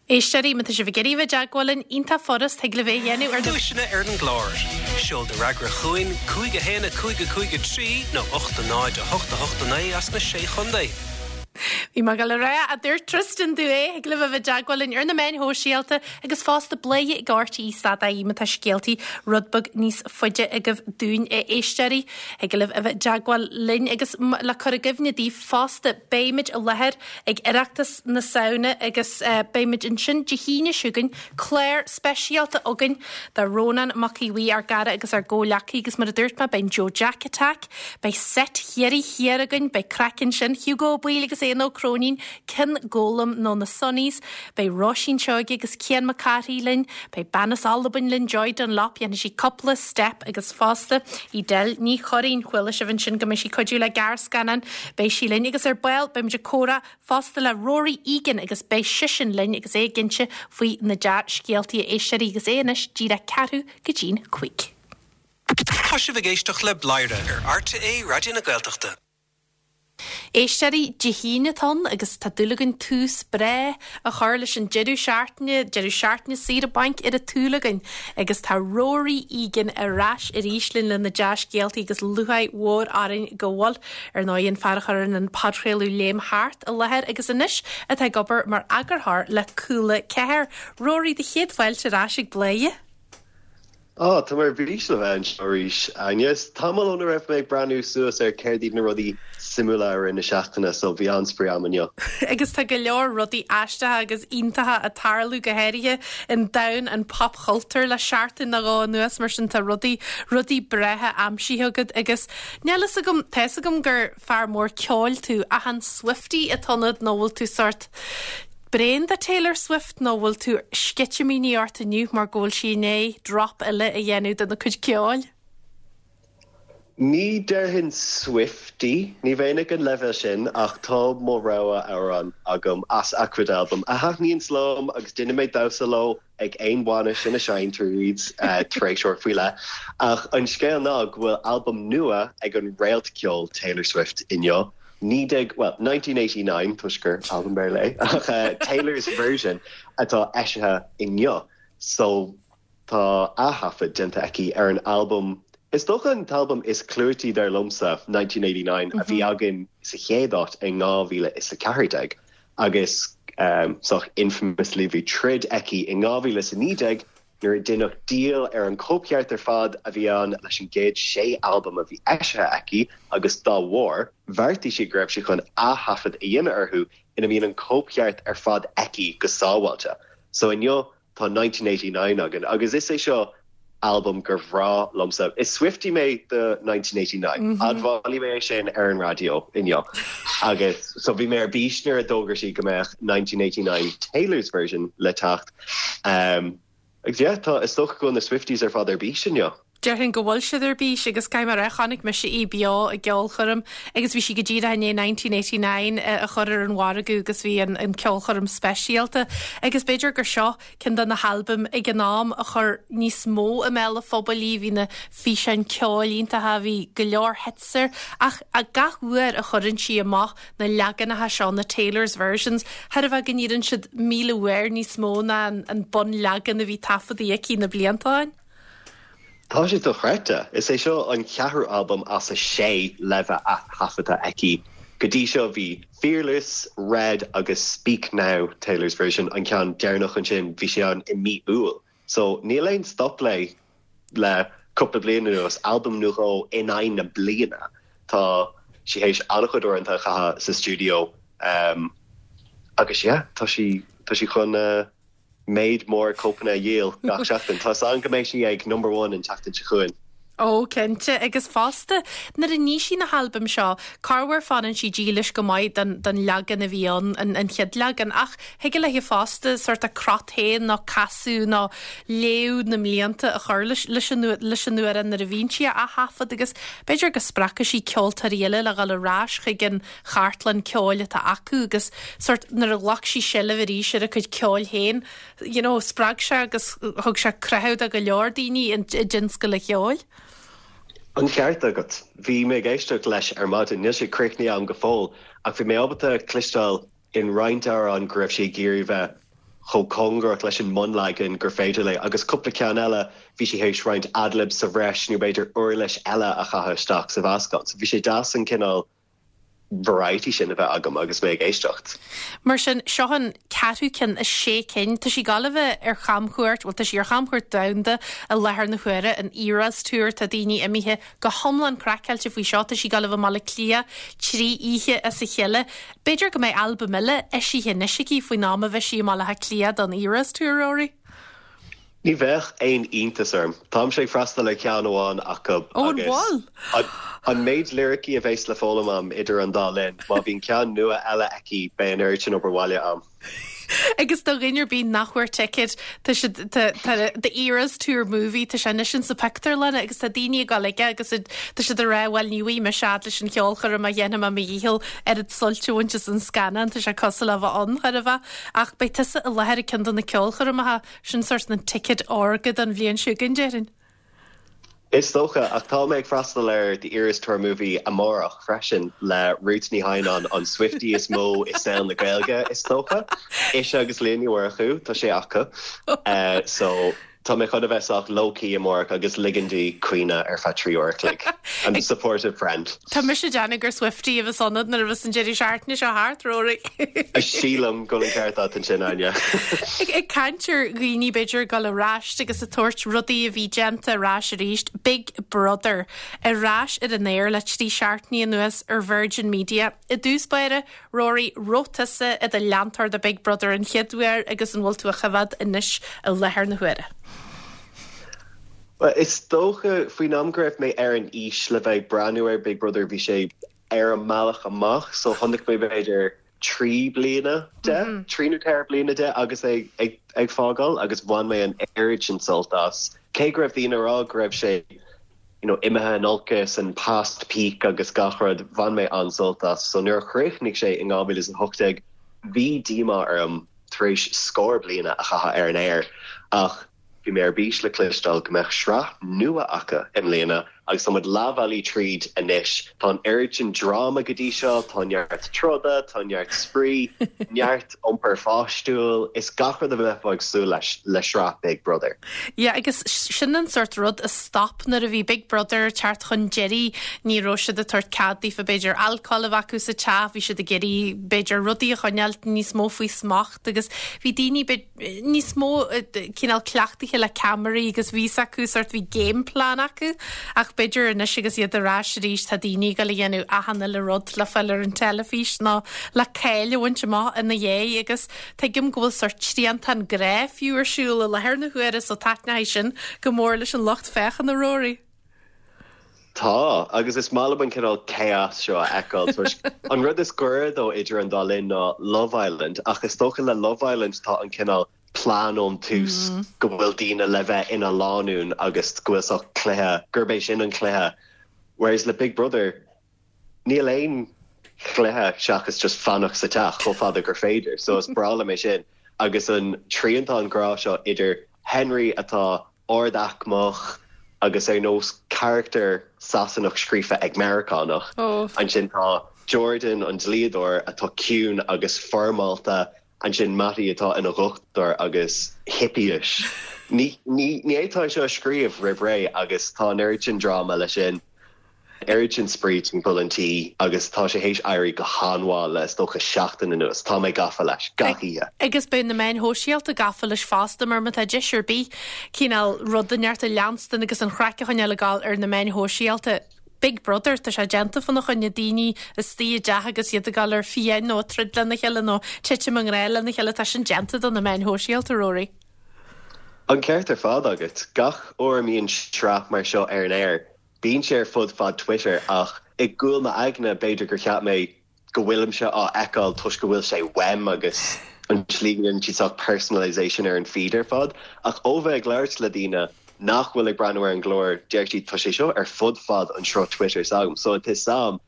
Éisteoirí, má tá sibh ag iarraidh a bheith i dteagmháil linn, iontach furast, thig libh é a dhéanamh ar na. Duaiseanna ar an gclár. Seol do fhreagra chugainn, 5 1 5 5 3 nó 8 0 8 8 9 as na Sé Chontae. Bhí mé ag dul a rá, a dúirt Tristan domh é, thig libh a bheith i dteagmháil linn ar na meáin shóisialta agus fosta bladhaire ag RTÉ stad ie má tá scéaltaí rud beag níos faide agaibh dúinn a éisteoirí. Thig libh a bheith i dteagmháil linn agus le cur i gcuimhne daoibh fosta beimid i láthair ag Oireachtas na Samhna agus beimid ansin Dé hAoine seo chugainn, clár speisialta againn do Rónán Mac Aodha Bhuí, ár gcara agus ár gcomhghleacaí agus mar a dúirt mé beidh an Joe Jack Attack, beidh seit Chiarraí Thiar againn, beidh craic ansin, Hugo Ó Baoill agus Éanna Ó Cróinín, Cionn Gólam nó na Sonnies, beidh Róisín Seoige agus Cian Mac Cárthaigh linn, beidh bean as Albain linn, Joy Dunlop, dhéanfaidh sí cúpla steip agus fosta Edel Ní Churraoin, chuala sibh ansin go mbeidh sí ag cuidiú le gearrscannán, beidh sí linn agus ar ball beimid ag comhrá fosta le Rory Egan agus beidh seisean linn agus é ag inse faoi na dea-scéaltaí a éisteoirí agus é anois díreach ceathrú go dtí'n chúig. Tá sibh ag éisteacht le Bladhaire ar RTÉ Raidió na Gaeltachta. Éisteoirí, Dé hAoine atá ann agus tá dúil againn tús breá a chur leis an deireadh seachtaine, deireadh seachtaine saoire bainc ar an tsúil againn agus tá Rory Egan ar ais arís linn le na dea-scéaltaí agus lúcháir mhór orainn go bhfuil, ar ndóigh, an fear a chuireann an podchraoladh Léim Thart i láthair agus anois atá ag obair mar eagarthóir le Cúla 4. Rory, do chéad fáilte ar ais ag Bladhaire. Á, tá mé ar bís le bheith anseo arís, Áine. Is tamall óna raibh mé ag breathnú suas ar céard iad na rudaí suimiúla i rith na seachtaine, so bhí an-spraoi a'm inniu. Agus tá go leor rudaí aisteacha agus iontacha ag tarlú, go háirithe i ndomhan an phopchultúir le seachtain nó dhó anuas, mar sin tá rudaí, rudaí breátha aimsithe agat agus níl fhios agam, tá fhios agam gur fear mór ceoil tú, ach an Swiftie atá ionat nó bhfuil tú sórt bréan de Taylor Swift nó bhfuil tú sceitimíní ort inniu mar go bhfuil sí i ndiaidh drop eile a dhéanamh dena cuid ceoil? Ní déarfainn Swiftie, ní bheinn ag an leibhéal sin ach tá mo rogha amhrán agam as a cuid albam a thaitníonns liom agus déanfaidh mé damhsa leo ag aon bhainis ina seinntear iad tar éis uair faoi leith. Ach an scéal ná go bhfuil albam nua ag an réalt ceoil Taylor Swift inniu. 19, bhuel, 1989, toisc gur albam Béarla é, ach Taylor's Version atá eisithe inniu. So, tá ath-thaifead déanta aici ar an albam, is dócha an t-albam is clúití dar liomsa, 1989, a bhí againn sa chéad áit in 2014. Agus, sách infamously, bhí troid aici in 2019 nuair a deineadh díol ar an cóipcheart ar fad a bhí ann leis an gcéad sé albam a bhí eisithe aici agus dá bharr, bheartaigh sí go raibh sí chun ath-thaifead a dhéanamh orthu ina mbíonn an cóipcheart ar fad aici go sábháilte. So inniu tá 1989 againn agus is é seo albam gur bhreá liomsa. Is Swiftie mé do 1989. Admhóidh mé é sin ar an raidió inniu. Agus so bhí mé ar bís nuair a d'fhógair sí go mbeadh 1989 Taylor's Version le teacht. Agus yeah, tá, is dócha go bhfuil na Swifties ar fad ar bís inniu. Déarfainn go bhfuil siad ar bís agus caithfidh mé a rá, chonaic mise í beo i gceolchoirm agus bhí sí go díreach i ndiaidh 1989 a chur ar an mhargadh agus bhí an an ceolchoirm speisialta agus b'fhéidir gur seo ceann de na halbaim ag an am a chuir níos mó i mbéal an phobail í, bhí na físeáin ceoil iontacha, bhí go leor hits air ach gach uair a chuireann sí amach na leaganacha seo, na Taylor's versions, chairbheá go n-iarrann siad 1,000 uair níos mó ná an bunleagan a bhí taifeadta aici na blianta ó shin. Tá sé dochreidte. Is é seo an ceathrú albam as a sé le bheith ath-thaifeadta aici. Go dtí seo bhí Fearless, Red agus Speak Now, Taylor's Version, an ceann deireanach ansin, bhí sé ann i mí Iúil. So níl aon stop léi le cúpla bliain anuas, albam nó dhó in aghaidh na bliana. Tá sí théis an-chuid uaireanta a chaitheamh sa stiúideo agus yeah, tá sí, tá sí chun méid mór cóipeanna a dhíol gach seachtain. Tá 'fhios agam go mbeidh sí ag number one an tseachtain seo chugainn. Ó, cinnte, agus fosta, nuair a ní sí na halbaim seo, corruair fanann sí dílis go maith don, don leagan a bhí ann, an, an chéad leagan, ach thig léi fosta sórt a crot féin nó casadh nó léamh na mblianta a chur leis, leis an, leis an amhrán nuair a bhíonn sí á thaifead agus b'fhéidir go spreagfaidh sí ceoltóirí eile le dhul ar ais chuig an chartlann ceoil atá acu agus sórt nuair a ghlac sí seilbh arís ar a cuid ceoil féin, you know, spreag sé agus thug sé croitheadh do go leor daoine i dtionscal an cheoil. An ceart agat. Bhí mé ag éisteacht leis ar maidin, níl sé críochnaithe agam go fóill, ach bhí mé ábalta cloisteáil in roinnt amhrán go raibh sí ag iarraidh bheith. chomh cóngarach leis an mbunleagan gur féidir léi agus cúpla ceann eile bhí sí théis roinnt ad-libs sa bhreis nó b'fhéidir uirlis eile a chaitheamh isteach sa mheascán. So bhí sé deas an cineál variety sin a bheith agam agus mé ag éisteacht. Mar sin, seo an ceathrú ceann as sé cinn. Tá sí ag gabháil a bheith ar chamchuairt, bhuel tá sí ar chamchuairt domhanda i láthair na huaire, an Eras Tour, tá daoine imithe go hiomlán craiceáilte faoi seo, tá sí ag gabháil a bheith i mBaile Átha Cliath trí oíche as a chéile. B'fhéidir go mbeidh albam eile eisithe anois aici faoin am a bheidh sí i mBaile Átha Cliath don Eras Tour, Rory. Ní bheadh aon iontas orm. Táimse ag freastal ar cheann amháin acu agus an méid liricí a bheas le foghlaim a'm idir an dá linn, má bhíonn ceann nua eile aici beidh an oiread sin obair bhaile a'm. Agus do dhuine ar bith nach bhfuair ticéad, tá siad, tá, tá The Eras Tour Movie, tá sé anois insa pictiúrlanna agus tá daoine ag dul aige agus tá siad ag rá bhuel ní bhfaighidh mise fhad leis an cheolchoirm ach dhéanfaidh mé mo dhícheall oiread suilt a bhaint as an scannán, tá sé cosúil le bheith ann, chóir a bheith. Ach beidh tusa i láthair ag ceann de na ceolchoirmeacha. Sin sórt an ticket órga don bhliain seo chugainn, déarfainn. Is dócha, ach tá mé ag freastal ar The Eras Tour Movie amárach freisin le Ruth Ní Theimhneáin, an Swiftie is mó i saol na Gaeilge, is dócha. Ise agus Liadh Ní Mhurchú, tá sé acu. So, tá mé chun a bheith sách low-key amárach agus ligean di caoineadh ar feadh 3 uair a chloig. I'm a supportive friend. Tá mise ag déanamh gur Swiftie a bheas ionat nuair a bheas an deireadh seachtaine seo thart, Rory. Sílim go bhfuil an ceart agat ansin, Áine. Ag caint ar dhaoine b'fhéidir ag dul ar ais agus ag tabhairt rudaí a bhí déanta ar ais arís, Big Brother ar ais ar an aer le trí seachtainí anuas ar Virgin Media. I dtús báire, Rory, raibh tusa i do leantóir de Big Brother an chéad uair agus an bhfuil tú á choimhéad anois i láthair na huaire? Bhuel, is dócha, faoin am go raibh mé ar an aois le bheith ag breathnú ar Big Brother, bhí sé ar an mbealach amach, so chonaic mé b'fhéidir trí bliana de, trí nó ceithre bliana de agus é ag fágáil agus bhain mé an oiread sin sult as. Cé go raibh daoine ag rá go raibh sé you know imithe in olcas and past peak agus gach rud, bhain mé an-sult as. So nuair a chríochnaigh sé in 2018, bhí díomá orm tar éis scór bliana a chaitheamh ar an aer ach, Bhí mé ar bís le cloisteáil go mbeadh sraith nua acu i mbliana agus tá muid leathbhealaigh tríd anois. Tá an oiread sin dráma go dtí seo, tá neart troda, tá neart spraoi, neart iompar pháistiúil, is gach rud a bheifeá ag súil leis le sraith Big Brother. Yeah agus sin an sórt rud a stop nuair a bhí Big Brother ag teacht chun deiridh, ní raibh siad ag tabhairt cead daofa b'fhéidir alcól a bheith acu sa teach, bhí siad ag iarraidh b'fhéidir rudaí a choinneáil níos mó faoi smacht agus bhí daoine níos mó cineál cleachtaithe le ceamaraí agus bhí 's acu sórt bhí game plan acu ach b'fhéidir anois agus iad ar ais arís tá daoine ag dul a dhéanamh achan uile rud le fáil ar an teilifís nó le cáil a bhaint amach ina dhiaidh agus tuigim go bhfuil sórt triantán grá fiú ar siúl i láthair na huaire so taitneoidh sin go mór leis an lucht féachana Rory. Tá, agus is maith liom an cineál chaos seo a fheiceáil toisc an rud is gaire dó idir an dá linn ná Love Island ach is dócha le Love Island tá an cineál plean ón tús go bhfuil daoine le bheith ina lánúin agus go bhfuil sórt cluiche, gurb é sin an cluiche whereas le Big Brother níl aon chluiche seachas just fanacht sa teach chomh fada gur féidir so is breá liom é sin agus an triantán grá seo idir Henry atá ard-aicmeach agus ar nós carachtar Sasanach scríofa ag Meiriceánach. Ansin tá Jordan, an dlíodóir, atá ciúin agus foirmeálta. Ansin Matty atá ina dhochtúir agus hippie-ish. Ní fhéadfá é seo a scríobh roimh ré agus tá an oiread sin dráma leis sin. Oiread sin spraoi timpeall an tí agus tá sé théis éirí go han-mhaith le is dócha seachtain anuas. Tá mé gafa leis, gach oíche. Agus beidh na meáin shóisialta gafa leis fosta mar má tá deis ar bith cineál rud inteacht a leanstan agus an chraic a choinneáil ag gabháil ar na meáin shóisialta. Big Brother, tá sé déanta fána choinne, daoine istigh i dteach agus iad ag gabháil ar fiáin nó ag troid lena chéile nó titim i ngrá lena chéile, tá sin déanta do na meáin shóisialta, Rory. An ceart ar fad agat. Gach uair a mbíonn sraith mar seo ar an aer, Bíonn sé ar fud fad Twitter ach i gcúl m'aigne b'fhéidir gur cheap mé go bhfuilimse á fheiceáil toisc go bhfuil sé uaim agus an tslí go ndéanann siad sórt personalisation ar an feed ar fad. Ach ó bheith ag labhairt le daoine nach bhfuil ag breathnú ar an gclár deir siad tá sé seo ar fud fad an sruth Twitter s'agam so tá 'fhios a'm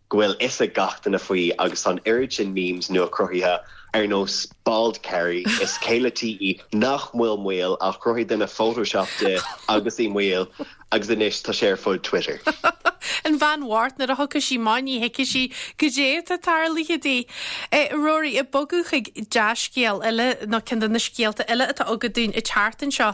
go bhfuil fhios ag gach duine faoi agus tá an oiread sin memes nua cruthaithe ar nós Bald Kerry is céile tí í nach bhfuil maol ach chruthaigh duine Photoshop di agus í maol agus anois tá sé ar fud Twitter. An bhean bhocht nuair a thiocfadh sí amach ní thuigfeadh sí goidé atá tarlaithe di. Rory, ag bogadh chuig dea-scéal eile nó ceann de na scéalta eile atá agat dúinn an tseachtain seo.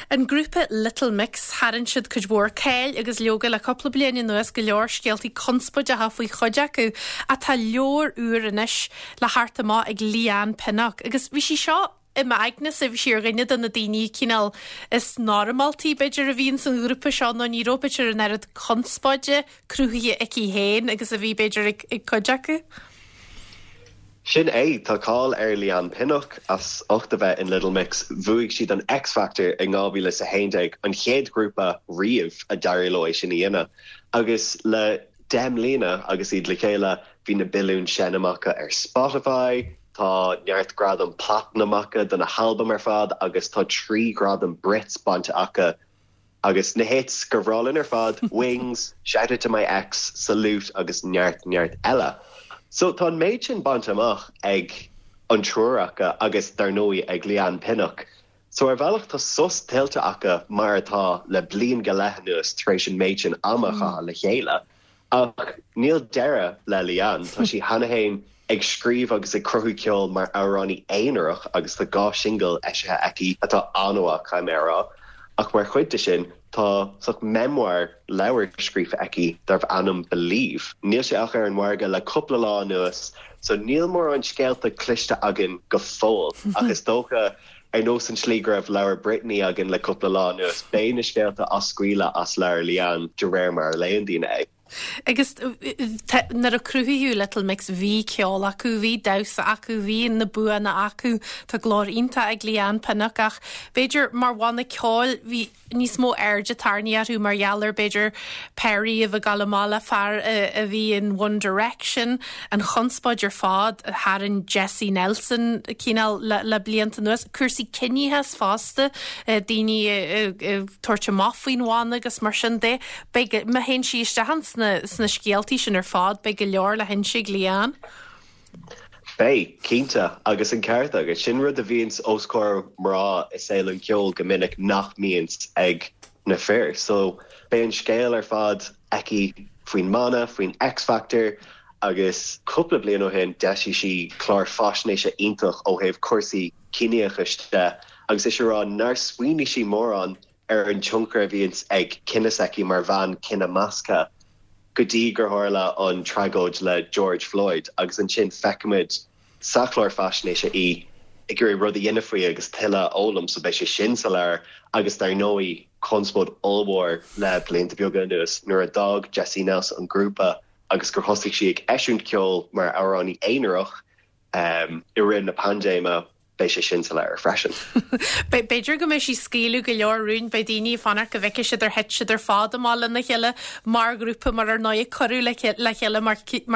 An grúpa Little Mix, tharraing siad cuid mhór cáil agus leoga le cúpla bliain anuas, go leor scéaltaí conspóideacha faoi chuid acu ach tá leabhar úr anois le theacht amach ag Leigh-Anne Pinnock agus bhí sí seo i m'aignese, bhí sí ar dhuine de na daoine cineál is normáltaí b'fhéidir a bhí ins an ghrúpa seo nó ní raibh b'fhéidir an oiread conspóide cruthaithe aici féin agus a bhí b'fhéidir ag cuid acu. Sin é, tá cáil ar Leigh-Anne Pinnock as ucht a bheith in Little Mix. Bhuaigh siad an X Factor in 2011, an chéad ghrúpa riamh a d'éirigh leo é sin a dhéanamh. Agus le 10 mbliana agus iad le chéile, bhí na billiúin seinm acu ar Spotify, tá neart gradam platinum acu do na halbaim ar fad agus tá 3 ghradam Brits bainte acu Agus na hits gur bhreá linn ar fad, Wings, Shout Out To My Ex, Salute agus neart neart eile. So tá an méid sin bainte amach ag an triúr acu agus dar ndóigh ag Leigh-Anne Pinnock. So ar bhealach tá sos tuillte acu mar atá le bliain go leith anuas tar éis an méid sin ama a chaitheamh le chéile. Ach níl deireadh le Leigh-Anne, tá sí cheana féin ag scríobh agus ag cruthú ceoil mar amhránaí aonarach agus tá 2 shingil eisithe aici atá an-mhaith, caithfidh mé a rá. Ach mar chuid de sin, tá sórt memoir, leabhar scríofa aici darbh ainm Believe. Níl sé ach ar an mhargadh le cúpla lá anuas so níl mórán scéalta cloiste againn go fóill ach is dócha ar nós an tslí go raibh leabhar Britney againn le cúpla lá anuas, beidh na scéalta á scaoileadh as leabhar Leigh-Anne de réir mar a léann daoine é. Agus nuair a cruthaíodh Little Mix bhí ceol acu, bhí damhsa acu, bhí na buanna acu, tá glór iontach ag Leigh-Anne Pinnock ach b'fhéidir mar bhanna ceoil bhí níos mó airde tarraingthe orthu mar gheall ar b'fhéidir Perrie a bheith ag gabháil amach le fear a bhí in One Direction, an chonspóid ar fad a tharraing Jesy Nelson cineál le blianta anuas, cúrsaí ciníochais fosta, daoine ag tabhairt amach faoin bhanna agus mar sin de. Beidh, má théann sí isteach sna scéaltaí sin ar fad, beidh go leor le hinse ag Leigh-Anne. Beidh, cinnte, agus an ceart agat. Sin rud a bhíonns os comhair mná i saol an cheoil go minic nach mbíonns ag na fir. So, beidh an scéal ar fad aici faoin mbanna, faoin X Factor agus cúpla bliain ó shin d'eisigh sí clár faisnéise iontach ó thaobh cúrsaí ciníochais de agus ise ag rá nár smaoinigh sí mórán ar an tionchar a bhíonns ag cine s'aici mar bhean cine measctha go dtí gur tharla an tragóid le George Floyd agus ansin feicimid sa chlár faisnéise í ag iarraidh rud a dhéanamh faoi agus tuilleadh a fhoghlaim so beidh sé sin sa leabhar agus dar ndóigh conspóid ollmhór le blianta beaga anuas nuair a d'fhág Jesy Nelson an grúpa agus gur thosaigh sí ag eisiúint ceoil mar amhránaí aonarach i rith na paindéime. Beidh sé sin sa leabhar freisin. B'fhéidir go mbeidh sí ag scaoileadh go leor rúin, beidh daoine ag fanacht go bhfeicfidh siad ar thit siad ar fad amach lena chéile mar ghrúpa mar ar ndóigh cuireadh le chéile mar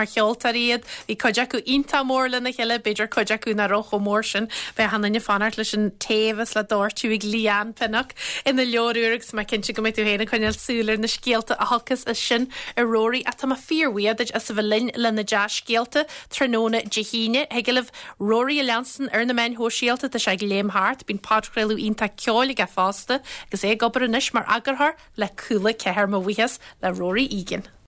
cheoltóirí iad. Bhí cuid acu iontach mór lena chéile, b'fhéidir cuid acu nach raibh chomh mór sin. Beidh achan duine ag fanacht leis an tae a bheas le doirteadh ag Leigh-Anne Pinnock ina leabhar úr agus mé cinnte go mbeidh tú féin ag coinneáil súil ar na scéalta a thiocfas as sin a Rory. Ach tá mé fíorbhuíoch duit as a bheith linn le na dea-scéalta tráthnóna Dé hAoine. Thig libh Rory a leanstan ar na meáin shóisialta, tá sé ag léim thart, bíonn podchraoladh iontach ceoil aige fosta agus é ag obair anois mar eagarthóir le Cúla 4. Mo bhuíochas le Rory Egan.